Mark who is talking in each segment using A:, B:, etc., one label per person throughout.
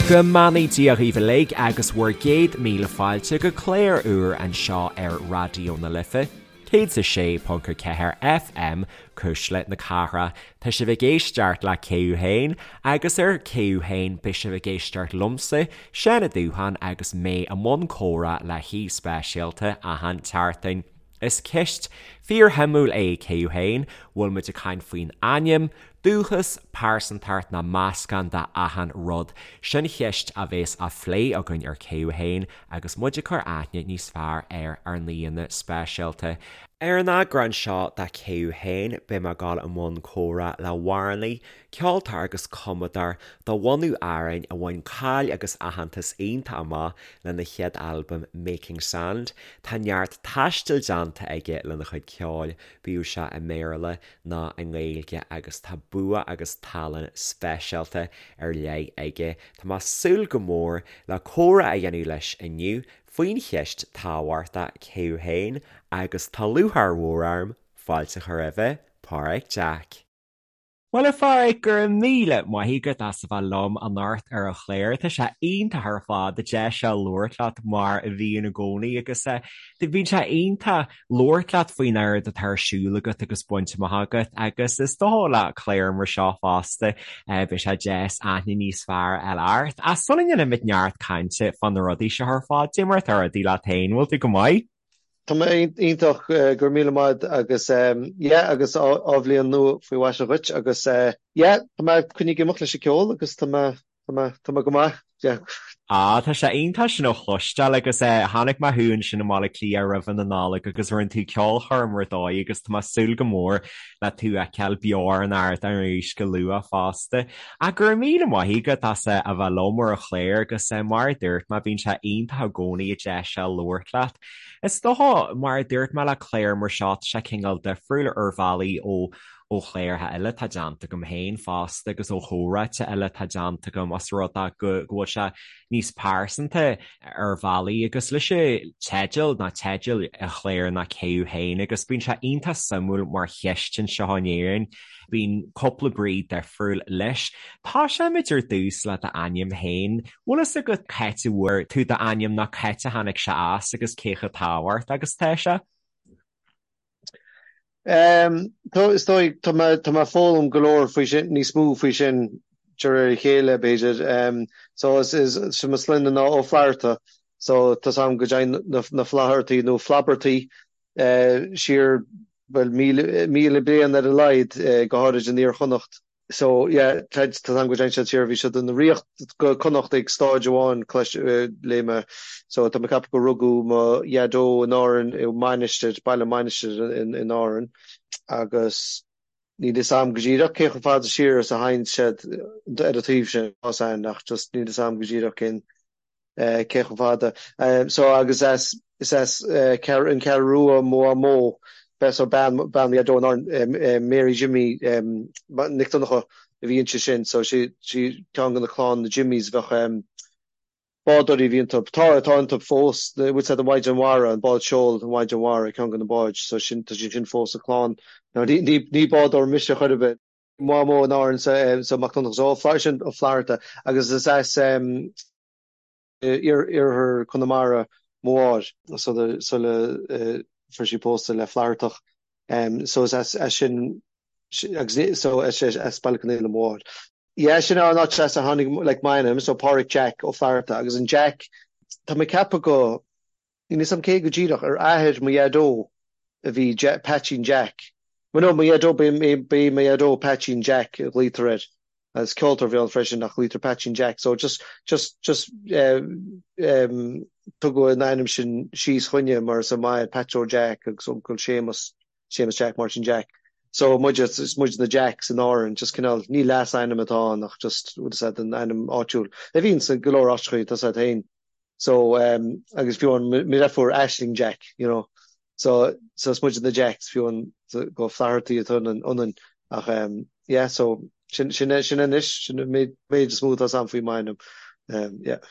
A: Go mbeannaí Dia dhaoibh uilig agus bhur gcéad míle fáilte go clár úr anseo ar Raidió na Life, 106.4 FM, Cuisle na Cathrach. Tá sibh ag éisteacht le Cé Thú Féin agus ar Cé Thú Féin beidh sibh ag éisteacht liomsa, Seán Ó Dúcháin agus mé i mbun comhrá le haoi speisialta achan tseachtain. Is ceist fíorshuimiúil é Cé Thú Féin, bhfuil muid ag caint faoin ainm, dúchas, pearsantacht nó meascán de achan rud? Sin cheist a bhéas á phlé againn ar Cé Thú Féin agus muid ag cur aithne níos fearr ar ár n-aíonna speisialta. Ar an eagrán seo de Cé Thú Féin beidh mé ag dul i mbun comhrá le hamhránaí, ceoltóir agus cumadóir de bhunadh Árainn a bhain cáil agus aitheantas iontach amach lena chéad albam Making Sand. Tá neart taistil déanta aige lena chuid ceoil, bíodh sé i mBéarla ná i nGaeilge agus tá bua agus tallann speisialta ar leith aige. Tá mé ag súil go mór le comhrá a dhéanamh leis inniu faoin cheist tábhachtach cé thú féin agus tá lúcháir mhór orm fáilte a chur roimhe, Páraic Jack. Bhuel, a Pháraic, go raibh míle maith agat as a bheith liom anocht ar an chlár. Tá sé iontach ar fad an deis seo labhairt leat mar a bhíonn i gcónaí agus bíonn sé iontach labhairt leat faoin oiread atá ar siúl agat agus bainte amach agat agus is dócha le clár mar seo fosta beidh sé deas aithne níos fearr a fháil ort. Ach sula ndéanaimid neart cainte fá na rudaí seo ar fad, cad é mar atá rudaí leat féin, bhfuil tú go maith?
B: Tá mé iontach, go raibh míle maith agus yeah agus athbhliain nua faoi mhaise dhuit agus yeah tá mé coinnithe ag imeacht leis an ceol agus tá mé tá mé tá mé go maith yeah.
A: Ah tá sé iontach sin a chloisteáil agus chonaic mé thú ansin i mBaile Átha Cliath roimhe na Nollag agus rinne tú ceolchoirm ar dóigh agus tá mé ag súil go mór le tú a fheiceáil beo ar an ardán arís go luath fosta. Ach go raibh míle maith agat as a bheith liom ar an chlár agus mar a dúirt mé bíonn sé iontach i gcónaí an deis seo labhairt leat. Is dócha, mar a dúirt mé le clár mar seo tá sé cineál difriúil ar bhealaí ó ó chláracha eile atá déanta agam féin fosta agus ó chomhráite eile atá déanta agam os rud é go bhfuil sé níos pearsanta ar bhealaí agus leis an teideal ná teideal an chláir ná Cé Thú Féin agus bíonn sé iontach suimiúil mar cheist anseo in Éirinn. Bíonn cúpla brí difriúil leis. Tosóimid ar dtús le d'ainm féin. Bhfuil fhios agat c'áit a bhfuair tú d'ainm nó c'áit a tháinig sé as agus cé chomh tábhachtach agus atá sé?
B: Is dóigh, tá mé tá mé ag foghlaim go leor faoi sin, níos mó faoi sin de réir a chéile, b'fhéidir. So is is mo sloinne ná Ó Flatharta, so tá 's a'm go dtéann na Flathartaí nó Flaibeartaí siar, bhuel, 1,000 bliain ar a laghad, go háirid in Iar-Chonnacht. So, yeah, tá 's a'm go dtéann siad siar, bhí siad ina ríocht go Connacht ag stáid amháin, léigh mé. So, tá mé ag ceapadh gur rugadh mo dhaideo in Árainn, i Mainistir, baile Mainistir in Árainn, agus níl fhios a'm go díreach cé chomh fada siar is a théann siad ar an taobh sin, tá 's a'm, ach just níl fhios a'm go díreach cén cé chomh fada. So agus as, is as an Cheathrú Rua mo mhamó, so bean, bean mo dhaideo in Árainn, Mary Jimmy Nic Donncha a bhí inti sin, so sí, sí ceann de na clann na Jimmys a bheadh, bádóirí a bhí iontu, tá, atá iontu fós, bhfuil fhios a'd an Mhaighdean Mhara, an bád seoil, an Mhaighdean Mhara, ceann de na báid, so sin, tá sí sin fós sa chlann. Now ní, ní, ní bádóir mise chor ar bith. Mhamó in Árainn so, so Mac Donncha, so ó, sin Ó Flatharta agus is as iarthar Chonamara mo mháthair sula fuair sí pósta le Flathartach so is as sin agus so as as Baile Conaola mo mháthair. Yeah sin an áit as a tháinig like m'ainm so Páraic Jack Ó Flatharta agus an Jack tá mé ag ceapadh go Níl 'fhios a'm cé go díreach, ar athair mo dhaideo a bhí Peaitsín Jack. Well no, mo dhaideo, ba é mo dhaideo Peaitsín Jack a ghlaotar air. Agus ceoltóir a bhí ann freisin ach glaotar Peaitsín Jack. So just, just, just eh, em, tugadh an ainm sin síos chugainne mar is m'athair Pat Joe Jack agus uncail Séamus, Séamus Jack, Máirtín Jack. So muid, is muid na Jacks in Árainn, just cineál, ní leasainm atá ann ach just, bhfuil 'fhios a'd, an ainm áitiúil. A bhíonn sa go leor áiteachaí, tá 'fhios a'd féin. So um agus fiú amháin mo dheirfiúr Aisling Jack, you know. So so is muid na Jacks fiú amháin go Flathartaí atá ionainn ach um yeah so sin sin sin anois sin an méid méid is mó atá 'fhios a'm faoi m'ainm. Um yeah.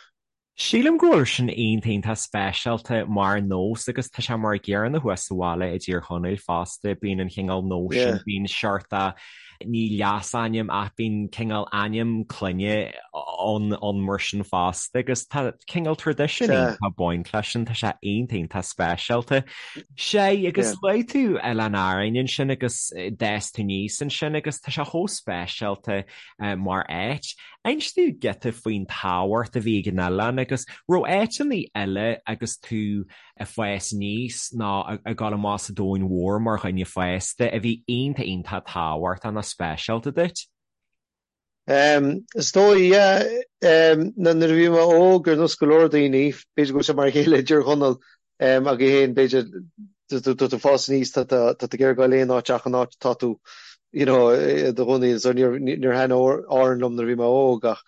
A: Sílim go bhfuil sin iontach iontach speisialta mar nós agus tá sé mar an gcéanna thuas sa bhaile i dTír Chonaill fosta, bíonn an chineál nóis sin, bíonn seort ní leasainm ach bíonn cineál ainm clainne ann ann mar sin fosta agus tá cineál traidisiún iontach ag baint leis sin, tá sé iontach iontach speisialta. Sea, agus luaigh tú Oileán Árainn ansin agus d'fhás tú aníos ansin agus tá sé chomh speisialta mar áit. Inis domh giota faoin tábhacht a bhí ag an oileán agus raibh áiteanna eile agus tú ag fás aníos nó ag dul amach sa domhan mhór mar dhuine fásta a bhí iontach iontach tábhachtach nó speisialta duit?
B: Is dóigh, yeah. Nuair a bhí mé óg, ar nós go leor daoine, b'fhéidir go bhfuil sé mar a chéile i dTír Chonaill agaibh féin, b'fhéidir, tá tú ag fás aníos, tá tú ag iarraidh goil aon áit ach an áit atá tú, you know, i do chónaí. So níor níor thaitin Árainn liom nuair a bhí mé óg ach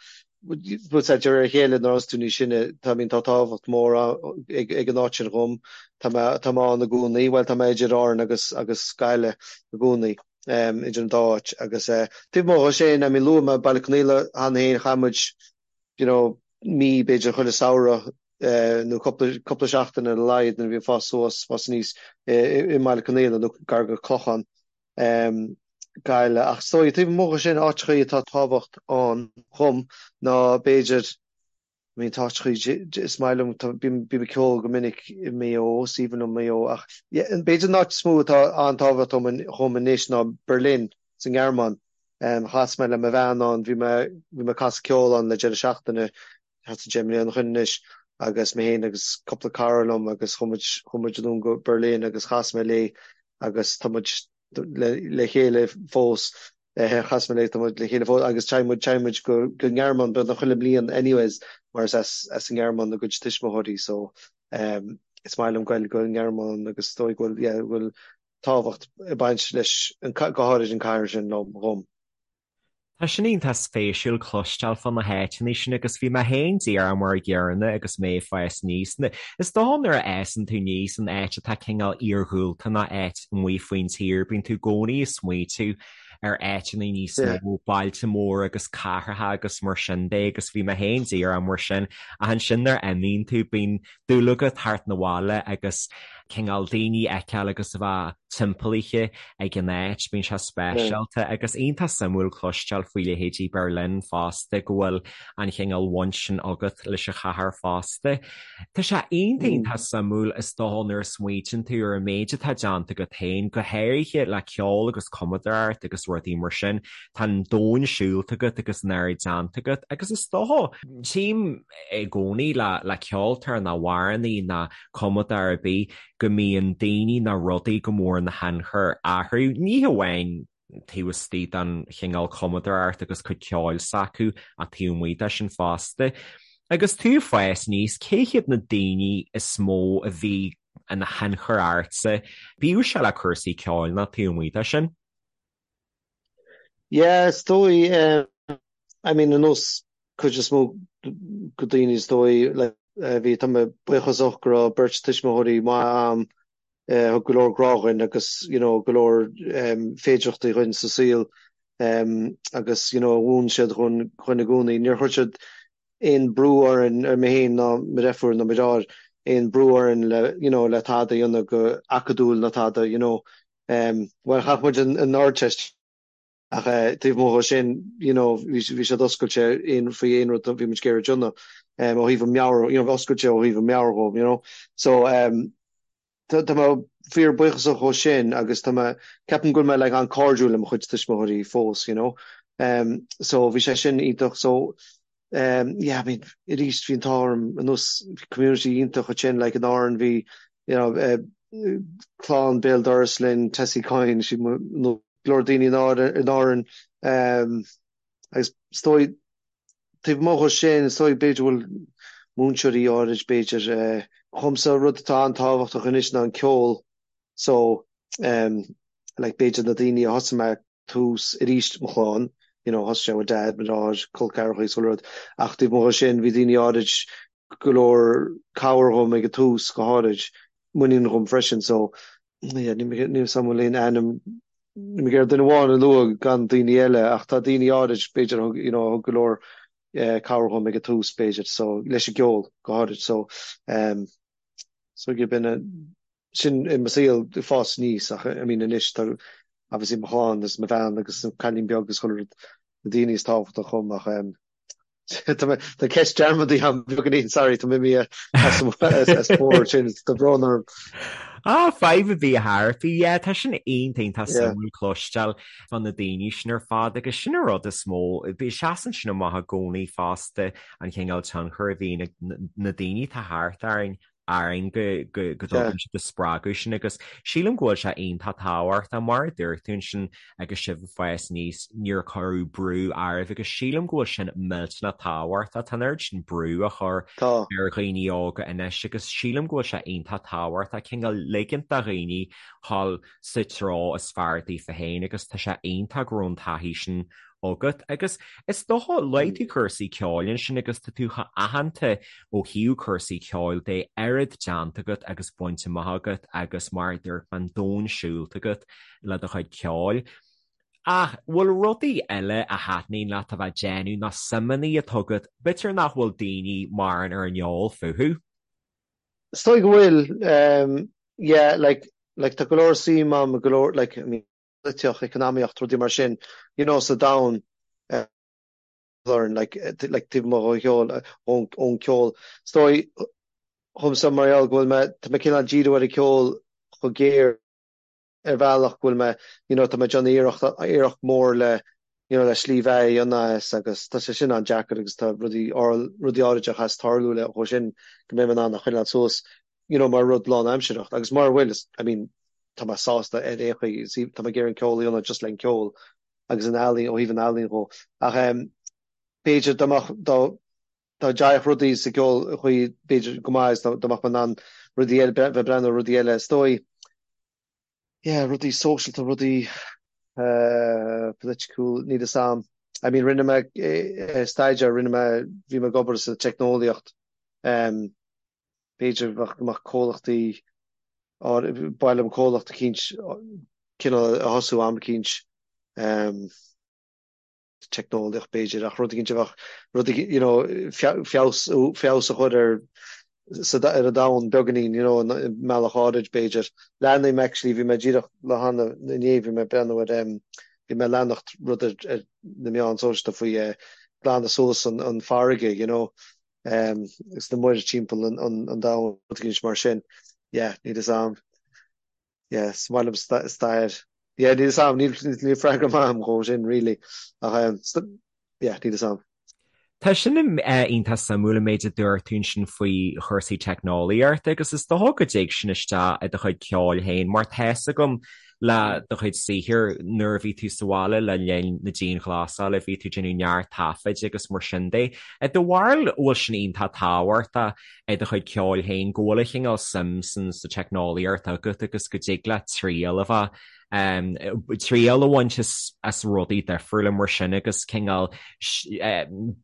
B: bhuel de réir a chéile nuair a thosaigh tú níos sine, tá, I mean, tá tábhacht mór ag ag an áit sin dhom. Tá mé tá mé ann i gcónaí, bhuel tá mé idir Árainn agus agus Gaillimh i gcónaí, idir an dá áit agus taobh amuigh dhe sin, I mean, luaigh mé Baile Conaola cheana féin, chaith muid, you know, mí b'fhéidir chuile samhradh nó cúpla, cúpla seachtain ar a laghad nuair a bhí ag fás suas, fás aníos i mBaile Conaola nó gar go Clochán, Gaillimh. Ach is dóigh, taobh amuigh dhe sin, áiteachaí atá tábhacht ann dhom ná b'fhéidir, I mean tá áiteachaí, is maith liom, tá, bím, bím ag ceol go minic i Maigh Eo, is aoibhinn liom Maigh Eo ach yeah, b'fhéidir an áit is mó atá an-tábhacht dhom, dhom anois ná Berlin sa nGearmáin. Chas mé le mo bhean ann, bhí mé, bhí mé ag casadh ceoil ann le deireadh seachtaine, thart ar 10 mbliana ó shin anois, agus mé féin agus cúpla cara liom agus chuaigh muid, chuaigh muid anonn go Berlin agus chas mé léi agus tá muid le, le chéile fós, chas mé léi, tá muid le chéile fós agus téann muid, téann muid go, go nGearmáin beagnach chuile mbliain anyways mar is as, as an nGearmáin a gcuid tuismitheoirí so is maith liom goil go an nGearmáin agus is dóigh go bhfuil, yeah, go bhfuil tábhacht ag baint leis, go háirid an cathair sin liom, dhom.
A: Tá sin iontach spéisiúil cloisteáil fá na háiteanna sin agus bhí mé féin díreach mar a gcéanna agus mé ag fás aníos. Is dócha nuair a fhásann tú aníos in áit atá cineál iarghúlta nó áit amuigh faoin tír, bíonn tú i gcónaí ag smaoitiú ar áiteanna níos mó, bailte móra agus cathracha agus mar sin de agus bhí mé féin díreach mar sin ach ansin nuair a imíonn tú bíonn dúil agat theacht 'na bhaile agus cineál daoine a fheiceáil agus a bheith timpeallaithe ag an áit, bíonn sé speisialta agus iontach suimiúil cloisteáil faoi leithéidí Berlin fosta, go bhfuil an chineál bhaint sin agat leis an chathair fosta. Tá sé iontach iontach suimiúil is dócha nuair a smaoitíonn tú ar an méid atá déanta agat féin, go háirithe le ceol agus cumadóireacht agus rudaí mar sin, tá an domhan siúlta agat agus an oiread déanta agat agus is dócha, tchím i gcónaí le ceoltóir nó amhránaí nó cumadóir ar bith go mbíonn daoine nó rudaí go mór ina thionchar orthu, ní hamháin taobh istigh den chineál cumadóireacht agus cuid ceoil s'acu ach taobh amuigh de sin fosta. Agus tú ag fás aníos, cé hiad na daoine is mó a bhí ina thionchar ortsa, bíodh sé le cúrsaí ceoil nó taobh amuigh de sin?
B: Yeah, is dóigh, I mean, ar nós cuid is mó de daoine is dóigh, like, bhí, tá mé buíochasach go raibh beirt tuismitheoirí maith a'm, thug go leor grá dhuinn agus, you know, go leor féidireachtaí dhuinn sa saol, agus, you know, mhúin siad dhuinn, dhuinn i gcónaí. Níor chuir siad aon brú orainn, ar mé féin ná mo dheirfiúr ná mo dheartháir, aon brú orainn le, you know, le tada a dhéanamh go acadúil ná tada, you know. Bhuel, chaith muid an Ardteist ach taobh amuigh dhe sin, you know, bhí siad oscailte aon, faoi aon rud a bhí muid ag iarraidh déanamh, ó thaobh an meabhair, you know, oscailte ó thaobh an meabhair dhóibh, you know. So, tá, tá mé fíor buíochasach dhó sin agus tá mé, ceapaim go bhfuil mé like an-cairdiúil le mo chuid tuismitheoirí fós, you know. So bhí sé sin iontach. So, yeah, I mean, arís bhí an t-ádh orm ar nós community iontach ansin, like in Árainn bhí, you know, clann béal dorais linn, Tessie Coyne, sí mo, nó go leor daoine in Árainn, in Árainn, agus is dóigh, taobh amuigh dhe sin, is dóigh b'fhéidir go bhfuil múinteoirí áirid, b'fhéidir, dhomsa rud atá an-tábhachtach anois ná an ceol, so, like b'fhéidir na daoine a thosaigh mé tús arís mo chlann, you know, thosaigh sé with dad, mo dheartháir, col ceathracha is chuile rud, ach taobh amuigh dhe sin bhí daoine áirid go leor cabhair dhom ag an tús go háirid, muinín dhom freisin so yeah, níl mé níl 'fhios a'm an bhfuil aon ainm, níl mé ag iarraidh duine amháin a lua gan daoine eile ach tá daoine áirid b'fhéidir a thug, you know, a thug go leor. cabhair dhom ag an tús b'fhéidir so leis an gceol go háirid so so yeah b'in sin i mo saol ag fás aníos ach I mean anois tá obviously mo chlann agus mo bhean agus an cailín beag agus chuile rud na daoine is tábhachtach dhom ach Tá mé tá ceist dearmadta agam beagáinín sorry tá mé imithe as as bord sin tá brón orm.
A: Ah, fadhb ar bith a Thairfí, yeah, tá sin iontach iontach Yeah. suimiúil cloisteáil fá na daoine sin ar fad agus sin an rud is mó, bhí seasann sin amach i gcónaí fosta an chineál tionchar a bhíonn ag na daoine atá thart orainn orainn go dtugann siad an spreagadh sin agus sílim go bhfuil sé iontach tábhachtach mar a dúirt tú ansin agus sibh ag fás aníos níor cuireadh brú oraibh agus sílim go bhfuil sin millteanach tábhachtach. Tá an oiread sin brú á chur ar dhaoine óga anois agus sílim go bhfuil sé iontach tábhachtach cineál ligint do dhaoine dhul sa treo is fearr daofa féin agus tá sé iontach go raibh an taithí sin agat. Agus is dócha, luaigh tú cúrsaí ceoil ansin agus tá tú chomh aitheanta ó thaobh cúrsaí ceoil de, oiread déanta agat agus bainte amach agat agus mar a dúirt mé, an domhan siúlta agat le do chuid ceoil. Ach bhfuil rudaí eile a thaitníonn leat a bheith ag déanamh nó suimeanna atá agat, b'fhéidir nach bhfuil daoine mórán ar an eol fúthu?
B: Is dóigh go bhfuil, yeah, like, like tá go leor suim agam, go leor, like, I mean, polaitíocht, eacnamaíocht, rudaí mar sin, you know, sa domhan, learn, like, like taobh amuigh dhon cheol, ón, ón ceol. Is dóigh dhomsa mar gheall go bhfuil mé, tá mé cineál díriú ar an ceol chomh géar ar bhealach go bhfuil mé, you know, tá mé ag déanamh iarracht, iarracht mór le, you know, le slí bheatha a dhéanamh as agus tá sé sin an-deacair agus tá rudaí, rudaí áirid a chaithfeas tarlú le dhó sin go mbeidh mé in ann a choinneáil suas. you know, mar rud lánaimsearach agus mura bhfuil, I mean, tá mé sásta ar aon chaoi, see, tá mé ag iarraidh an ceol a dhéanamh just le an ceol agus an ealaín, ó thaobh an ealaín dhó. Ach em, b'fhéidir dá mbeadh, dá, dá dtéadh rudaí sa gceol chaoi, b'fhéidir go maith is dá, dá mbeadh mé in ann rudaí eile, bheith ag breathnú ar rudaí eile, is dóigh, yeah, rudaí sóisialta, rudaí eh, political, níl fhios a'm. I mean, rinne mé eh, staidéar, rinne mé, bhí mé ag obair sa teicneolaíocht, em, B'fhéidir go mbeadh comhlachtaí, ba mhaith liom comhlacht eicínt cineál a thosú am eicínt, teicneolaíocht b'fhéidir, ach rud eicínt a bheadh, rud eicínt, you know, feabhas, feabhas a chur ar, sa, ar an domhan beagáinín, you know, i mbealach áirid b'fhéidir. Leanaim actually, bhí mé díreach le hana, inné bhí mé ag breathnú ar, bhí mé ag leanacht rud ar, ar na meáin sóisialta faoi glanadh suas an, an farraige, you know, agus na muir timpeall an domhain, rud éigin mar sin. Yeah, níl fhios a'm. Yeah, is maith liom stair. Yeah, níl fhios a'm, níl freagra maith a'm dhó sin, really. Ach, yeah, níl fhios a'm.
A: Tá sin iontach suimiúil an méid a dúirt tú ansin faoi chúrsaí teicneolaíochta agus is dócha go dtig sin isteach i do chuid ceoil féin mar tá's agam le do chuid saothair nuair a bhí tú sa bhaile le linn na dianghlasála, bhí tú ag déanamh neart taifid agus mar sin de. I do bharúil, an bhfuil sin iontach tábhachtach i do chuid ceoil féin, go bhfuil an chineál suim san sa teicneolaíocht agat agus go dtig leat triail a bheith, triail a bhaint as rudaí difriúla mar sin agus cineál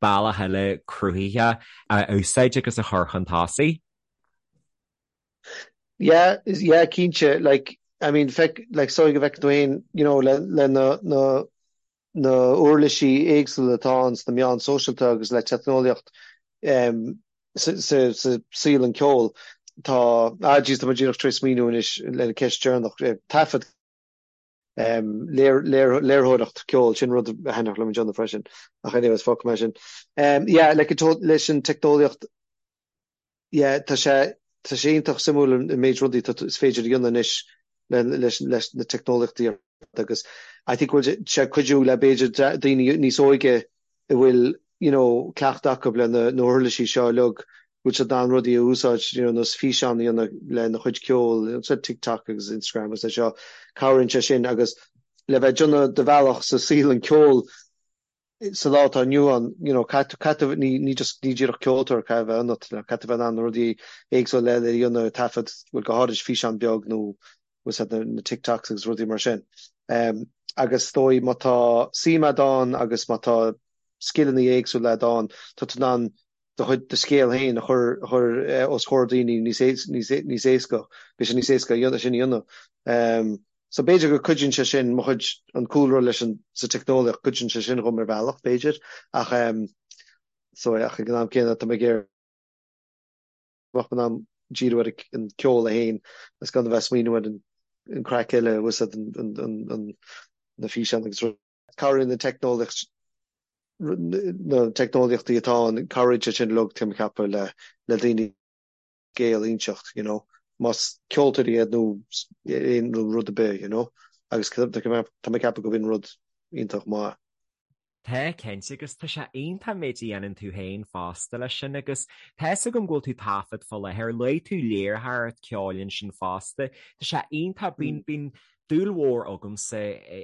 A: bealach eile cruthaithe a úsáid agus a chur chun tosaigh?
B: Yeah, yeah, cinnte, like, I mean, feic, like, is dóigh go bhfeiceann tú féin, you know, le, le na, na, na uirlisí éagsúla atá ann sna meáin sóisialta agus le teicneolaíocht, em, sa, sa, sa saol an ceoil, tá, ah, jeez, tá mé díreach tar éis smaoineamh anois le ceist deireanach, eh, taifead, em, léir, léir, léirtheoireacht ceoil, sin rud a thaitneodh liom a dhéanamh freisin, ach anyways, fágfaidh mé sin. Em, yeah, like, leis an teicneolaíocht, Yeah, tá sé, tá sé iontach suimiúil an méid rudaí atá, is féidir a dhéanamh anois le, leis, leis na teicneolaíochtaí ar fad agus I think go bhfuil sé ag cuidiú le b'fhéidir daoine níos óige a bhfuil, you know, cleachtadh acu le na, na huirlisí seo uilig, go bhfuil siad in ann rudaí a úsáid, you know, nós físeán a dhéanamh lena chuid ceoil, you know, TikTok agus Instagram agus é seo, cabhraíonn sé sin agus le bheith ag déanamh do bhealach sa saol an ceoil, sa lá atá inniu ann, you know, caithfidh, caithfidh, ní, ní just, ní díreach ceoltóir caithfidh a bheith ionat, you know, caithfidh a bheith in ann na rudaí éagsúla eile a dhéanamh, taifead, bhuel, go háirid físeán beag nó bhfuil a fhios agat na, na TikToks agus rudaí mar sin. Um, agus is dóigh má tá suim a'd ann agus má tá scileanna éagsúla a'd ann, tá tú in ann do chuid, do scéal féin a chur, a chur os comhair daoine níos, níos, níos éasca, beidh sé níos éasca a dhéanamh, sin a dhéanamh. Um, so b'fhéidir go cuidíonn sé sin, mo chuid, an cúlra leis an, sa teicneolaíocht, cuidíonn sé sin dhom ar bhealach, b'fhéidir, ach um, So ach ag an am céanna tá mé ag iarraidh go mbeadh mé in ann díriú ar an ceol é féin agus gan a bheith ag smaoineamh ar an craic eile, bhfuil 's a'd, na físeáin agus rudaí. Cabhraíonn na teicneolaíocht, na teicneolaíochtaí atá ann, cabhraíonn sé sin uilig, tá mé ag ceapadh, le le daoine scéal a inseacht, you know, más ceoltóirí iad nó aon rud ar bith, you know, agus tá mé ag ceapadh go bhfuil rud iontach maith.
A: Tá, cinnte, agus tá sé iontach an méid a dhéanann tú féin fosta leis sin agus tá 'fhios agam go bhfuil tú ag taifead fá láthair, luaigh tú léiritheoireacht ceoil ansin fosta, tá sé iontach, bíonn, bíonn dúil mhór agamsa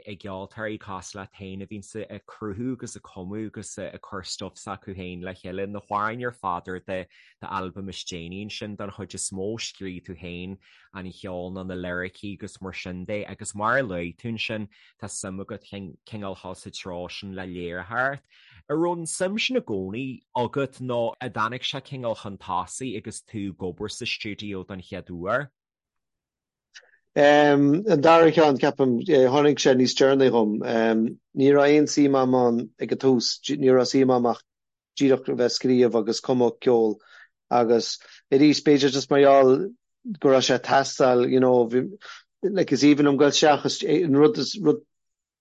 A: i gceoltóirí cosúil leat féin a bhíonns ag cruthú agus ag cumadh agus ag cur stuif s'acu féin le chéile, na hamhráin ar fad ar do d'albam is déanaí ansin don chuid is mó, scríobh tú féin an cheol nó na liricí agus mar sin de agus mar a luaigh tú ansin, tá suim agat cineál dhul sa treo sin le léiritheoireacht. An raibh an suim sin i gcónaí agat nó an dtáinig sé cineál chun tosaigh agus tú ag obair sa stiúideo don chéad uair?
B: An dara ceann, ceapaim, tháinig sé níos deireanaí dhom. Ní raibh aon suim a'm ann ag an tús, ní raibh suim a'm ach díreach a bheith ag scríobh agus cumadh ceoil agus arís b'fhéidir just mar gheall go raibh sé ag teastáil you know bhí like is aoibhinn liom dul isteach is an rud is rud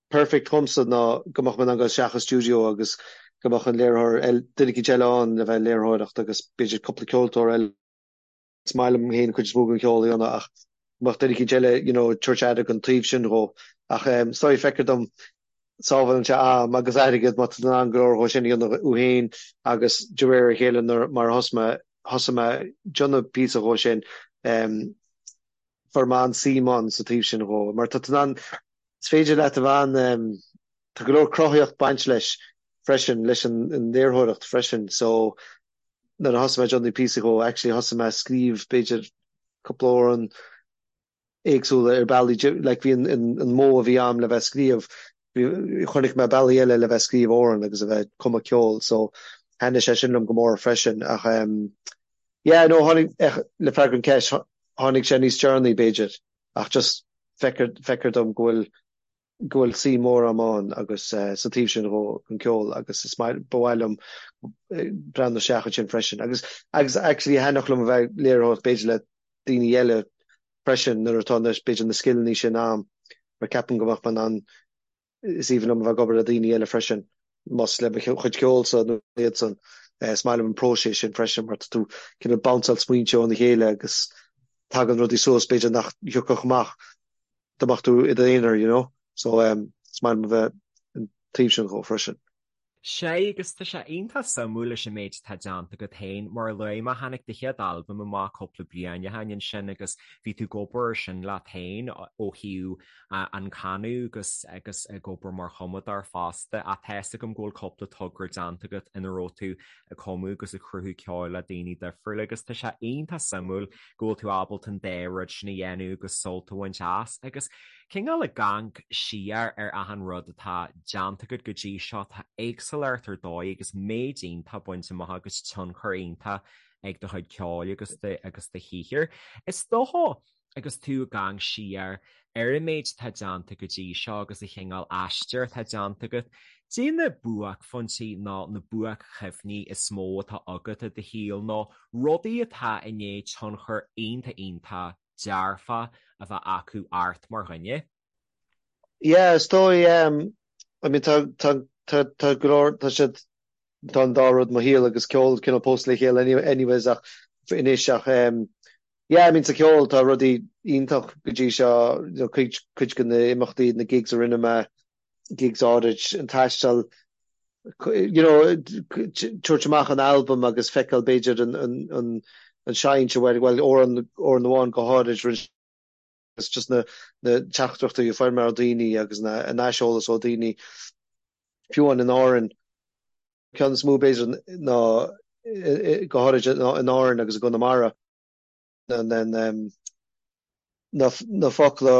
B: perfect dhomsa ná go mbeadh mé in ann dul isteach i stiúideo agus go mbeadh an léiritheoir eile duine eicínt eile ann le bheith ag léiritheoireacht agus b'fhéidir cúpla ceoltóir eile Is maith liom féin cuid is mó den cheol a dhéanamh ach go mbeadh duine eicínt eile you know ag tabhairt aire don taobh sin dhó. Ach is dóigh feictear dom sábhálann sé am agus airgead má tá tú in ann go leor dhó sin a dhéanamh thú féin agus de réir a chéile nuair mar a thosaigh mé thosaigh mé ag déanamh píosa dhó sin fuair mé an-suim ann sa taobh sin dhó mar tá tú in ann is féidir leat a bheith an tá go leor cruthaíocht baint leis freisin leis an léiritheoireacht freisin so nuair a thosaigh mé ag déanamh píosa dhó, actually thosaigh mé ag scríobh b'fhéidir cúpla amhrán éagsúla ar bealaí, like bhí an an modh a bhí a'm le bheith ag scríobh, bhí, chonaic mé bealaí eile le bheith ag scríobh amhrán agus a bheith ag cumadh ceoil so thaitnigh sé sin liom go mór freisin ach em yeah no tháinig, eh le freagra an cheist, tháinig sé níos deireanaí b'fhéidir ach just feictear, feictear dom go bhfuil go bhfuil suim mhór a'm ann agus sa taobh sin dhó, an ceol agus is maith, ba mhaith liom breathnú isteach ansin freisin. Agus, agus actually thaitneodh liom a bheith ag léiritheoireacht b'fhéidir le daoine eile freisin nuair atá na, b'fhéidir na scileanna sin a'm mar ceapaim go mbeadh mé in ann, is aoibhinn liom a bheith ag obair le daoine eile freisin, más le mo chuid ceoilsa nó iadsan. Is maith liom an próiseas sin freisin mar tá tú cineál bounceáil smaointe óna chéile agus tagann rudaí suas b'fhéidir nach thiocfadh amach dá mbeadh tú i d'aonar, you know. So um, is maith liom a bheith an taobh sin dhó freisin.
A: Sea, agus tá sé iontach suimiúil leis an méid atá déanta agat féin. Mar a luaigh mé, tháinig do chéad albam amach cúpla bliain ó shin ansin agus bhí tú ag obair ar sin leat féin ó thaobh an canadh agus agus ag obair mar chumadóir fosta. Ach tá fhios agam go bhfuil cúpla togra déanta agat ina raibh tú ag cumadh agus ag cruthú ceoil le daoine difriúla agus tá sé iontach suimiúil go bhfuil tú ábalta an dá rud sin a dhéanamh agus sult a bhaint as agus cineál ag amharc siar ar achan rud atá déanta agat go dtí seo, tá éagsúlacht ar dóigh agus méid iontach bainte amach agus tionchar iontach ag do chuid ceoil agus do agus do shaothar. Is dócha agus tú ag amharc siar ar an méid atá déanta go dtí seo agus an chineál aistear atá déanta agat, caidé na buaicphointí nó na buaic-chuimhní is mó atá agat i do shaol nó rudaí atá i ndiaidh tionchar iontach iontach dearfach a bheith acu ort mar dhuine?
B: Yeah, is dóigh, um, I mean tá tá tá tá go leor tá siad tá an dá rud mo shaol agus ceol cineál pósta le chéile anyways ach anois ach um, yeah, I mean sa cheol tá rudaí iontach go dtí seo, you know, cuid cuid de na imeachtaí, na gigs a rinne mé, gigs áirid, an taisteal, you know, tabhairt amach an albam agus feiceáil b'fhéidir an an an an seinnt a bhfuil bhuel amhrán amhrán amháin go háirid rinne agus just na na teachtaireachtaí a fuair mé ó daoine agus na an aiseolas ó daoine fiú amháin in Árainn. Ceann is mó b'fhéidir ná go háirid in Árainn agus i gConamara na na focla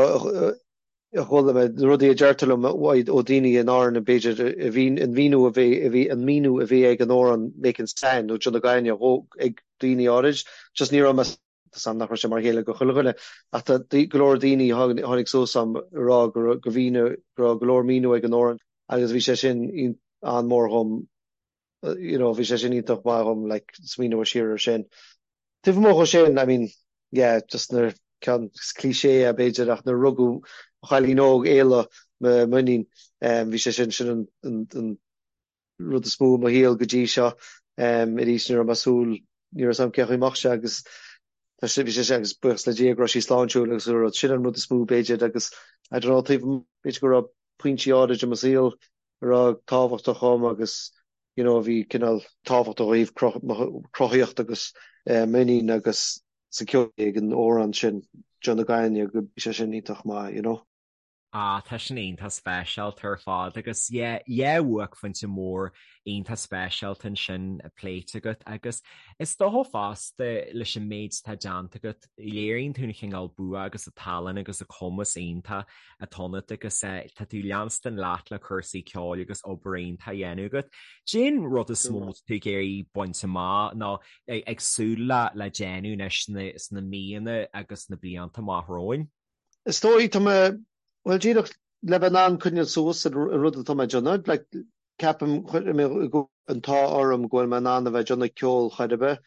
B: a chuala mé, na rudaí a deirtear liom ó daoine in Árainn b'fhéidir a bhí an míniú a bhí a bhí an míniú a bhí ag an amhrán Making Sand nó John na Gaine ag daoine áirid just ní raibh mé Tá 's a'm nach raibh sé mar a chéile go chuile dhuine, ach tá go leor daoine a tháinig suas a'm ag rá go raibh go leor míniú ag an amhrán agus bhí sé sin an-mhór dhom. You know, bhí sé sin iontach maith dhom, like, smaoineamh siar ar sin. Taobh amuigh dhó sin, I mean, yeah, just nuair, ceann cliché é b'fhéidir, ach nuair a rugadh mo chailín óg, Éala, m'iníon, bhí sé sin, sin an, an, an rud is mó i mo shaol go dtí seo. Arís, ní raibh mé ag súil, ní raibh 'fhios a'm cén chaoi a mbeadh sé agus tá sé, bhí sé sin agus buíochas le Dia go raibh sí sláintiúil agus an rud, sin an rud is mó b'fhéidir agus I don't know, taobh amuigh, b'fhéidir go raibh pointí áirid i mo saol a raibh tábhachtach dhom agus you know a bhí cineál tábhachtach ó thaobh mo chruthaíocht agus m'iníon agus sa ceol ag an amhrán sin John na Gainne go bhí sé sin iontach maith you know.
A: Ah tá sin iontach speisialta ar fad agus yeah yeah buaicphointe mór iontach speisialta ansin pléite agat agus is dócha fosta leis an méid atá déanta agat léiríonn tú an chineál bua agus an tallann agus an cumas iontach atá ionat agus tá tú ag leanstan leat le cúrsaí ceoil agus obair iontach á dhéanamh agat. Cén rud is mó atá tú ag iarraidh baint amach nó ag súil le le déanamh anois sna míonna agus sna blianta amach romhainn?
B: Is dóigh, tá mé, bhuel díreach le bheith in ann coinneáil suas an rud atá mé ag déanamh, like ceapaim, chuir mé an t-ádh orm go bhfuil mé in ann a bheith ag déanamh ceoil chor ar bith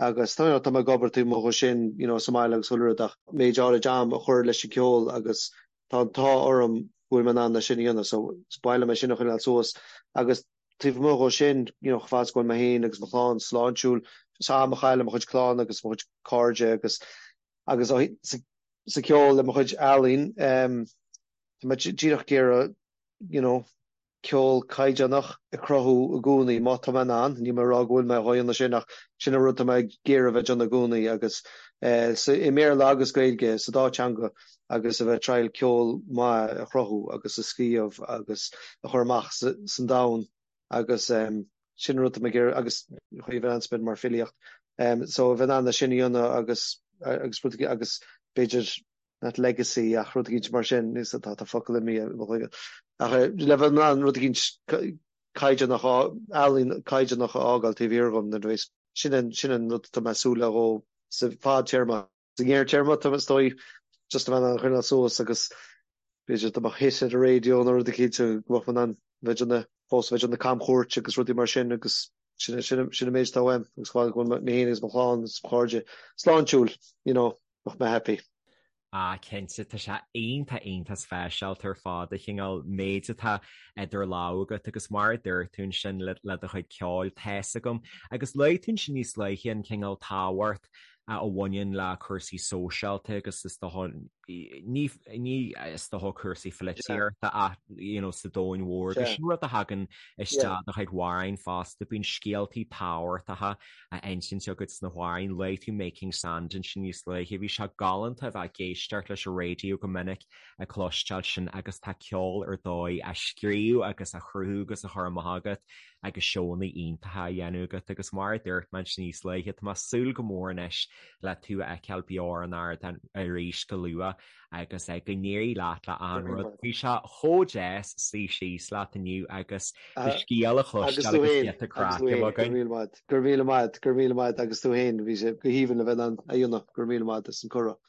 B: agus tá tá mé ag obair taobh amuigh dhe sin you know sa mbaile agus chuile rud ach méid áirid am a chur leis an gceol agus tá an t-ádh orm go bhfuil mé in ann é sin a dhéanamh so is mhaith liom é sin a choinneáil suas agus taobh amuigh dhó sin you know chomh fada is go bhfuil mé féin agus mo chlann sláintiúil just am a chaitheamh le mo chuid clann agus mo chuid cairde agus agus sa sa ceol le mo chuid ealaín um, tá mé díreach ag iarraidh you know ceol caighdeánach a chruthú i gcónaí, má tá mé in ann, níl mé ag rá go bhfuil mé á dhéanamh sin ach sin an rud atá mé ag iarraidh a bheith ag déanamh i gcónaí agus i mBéarla agus Gaeilge, sa dá teanga agus a bheith ag triail ceol maith a chruthú agus a scríobh agus a chur amach san domhan agus sin an rud atá mé ag iarraidh agus chuir bheith in ann mar filíocht so a bheith in ann é sin a dhéanamh agus agus rud agus b'fhéidir not legacy ach rud eicínt mar sin, níos tá tá focal imithe i mo chloigeann. Ach le bheith in ann rud eicínt caighdeánach, ealaín caighdeánach a fhágáil taobh thiar dhom nuair a bheas, sin an sin an rud atá mé ag súil le dhó sa fadtéarma. Sa ngearrtéarma tá is dóigh just a bheith in ann coinneáil suas agus b'fhéidir dá mbeadh hit ar an raidió nó rud eicínt go mbeadh mé in ann bheith ag déanamh fós bheith ag déanamh camchuairt agus rudaí mar sin agus sin sin sin an méid atá uaim agus go bhfuil mé féin agus mo chlann agus mo chairde sláintiúil, you know. Bheadh mé happy.
A: Ah cinnte, tá sé iontach iontach speisialta ar fad an cineál méid atá idir lámha agat agus mar a dúirt tú ansin le le do chuid ceoil, tá's agam. Agus luaigh tú ansin níos luaithe an cineál tábhacht a bhaineann le cúrsaí sóisialta agus is dócha ní ní is dócha cúrsaí pholaitíochta ach you know sa domhan mhór agus sin rud a thagann isteach i do chuid amhráin fosta, bíonn scéaltaí tábhachtacha á insint agat sna hamhráin. Luaigh tú Making Sand ansin níos luaithe. Bhí sé galánta a bheith ag éisteacht leis an raidió go minic ag cloisteáil sin agus tá ceol ar dóigh á scríobh agus á chruthú agus á chur amach agat agus seónna iontacha á dhéanamh agat agus mar a dúirt mé ansin níos luaithe tá mé ag súil go mór anois le tú a fheiceáil beo ar an ardán arís go luath agus go n-éirí leat le achan rud. Bhí sé chomh deas suí síos leat inniu agus do scéal a chloisteáil agus giota craic a bheith againn.
B: Go raibh míle maith, go raibh míle maith agus tú féin, bhí sé go haoibhinn le bheith in ann a dhéanamh, go raibh míle maith as an cuireadh.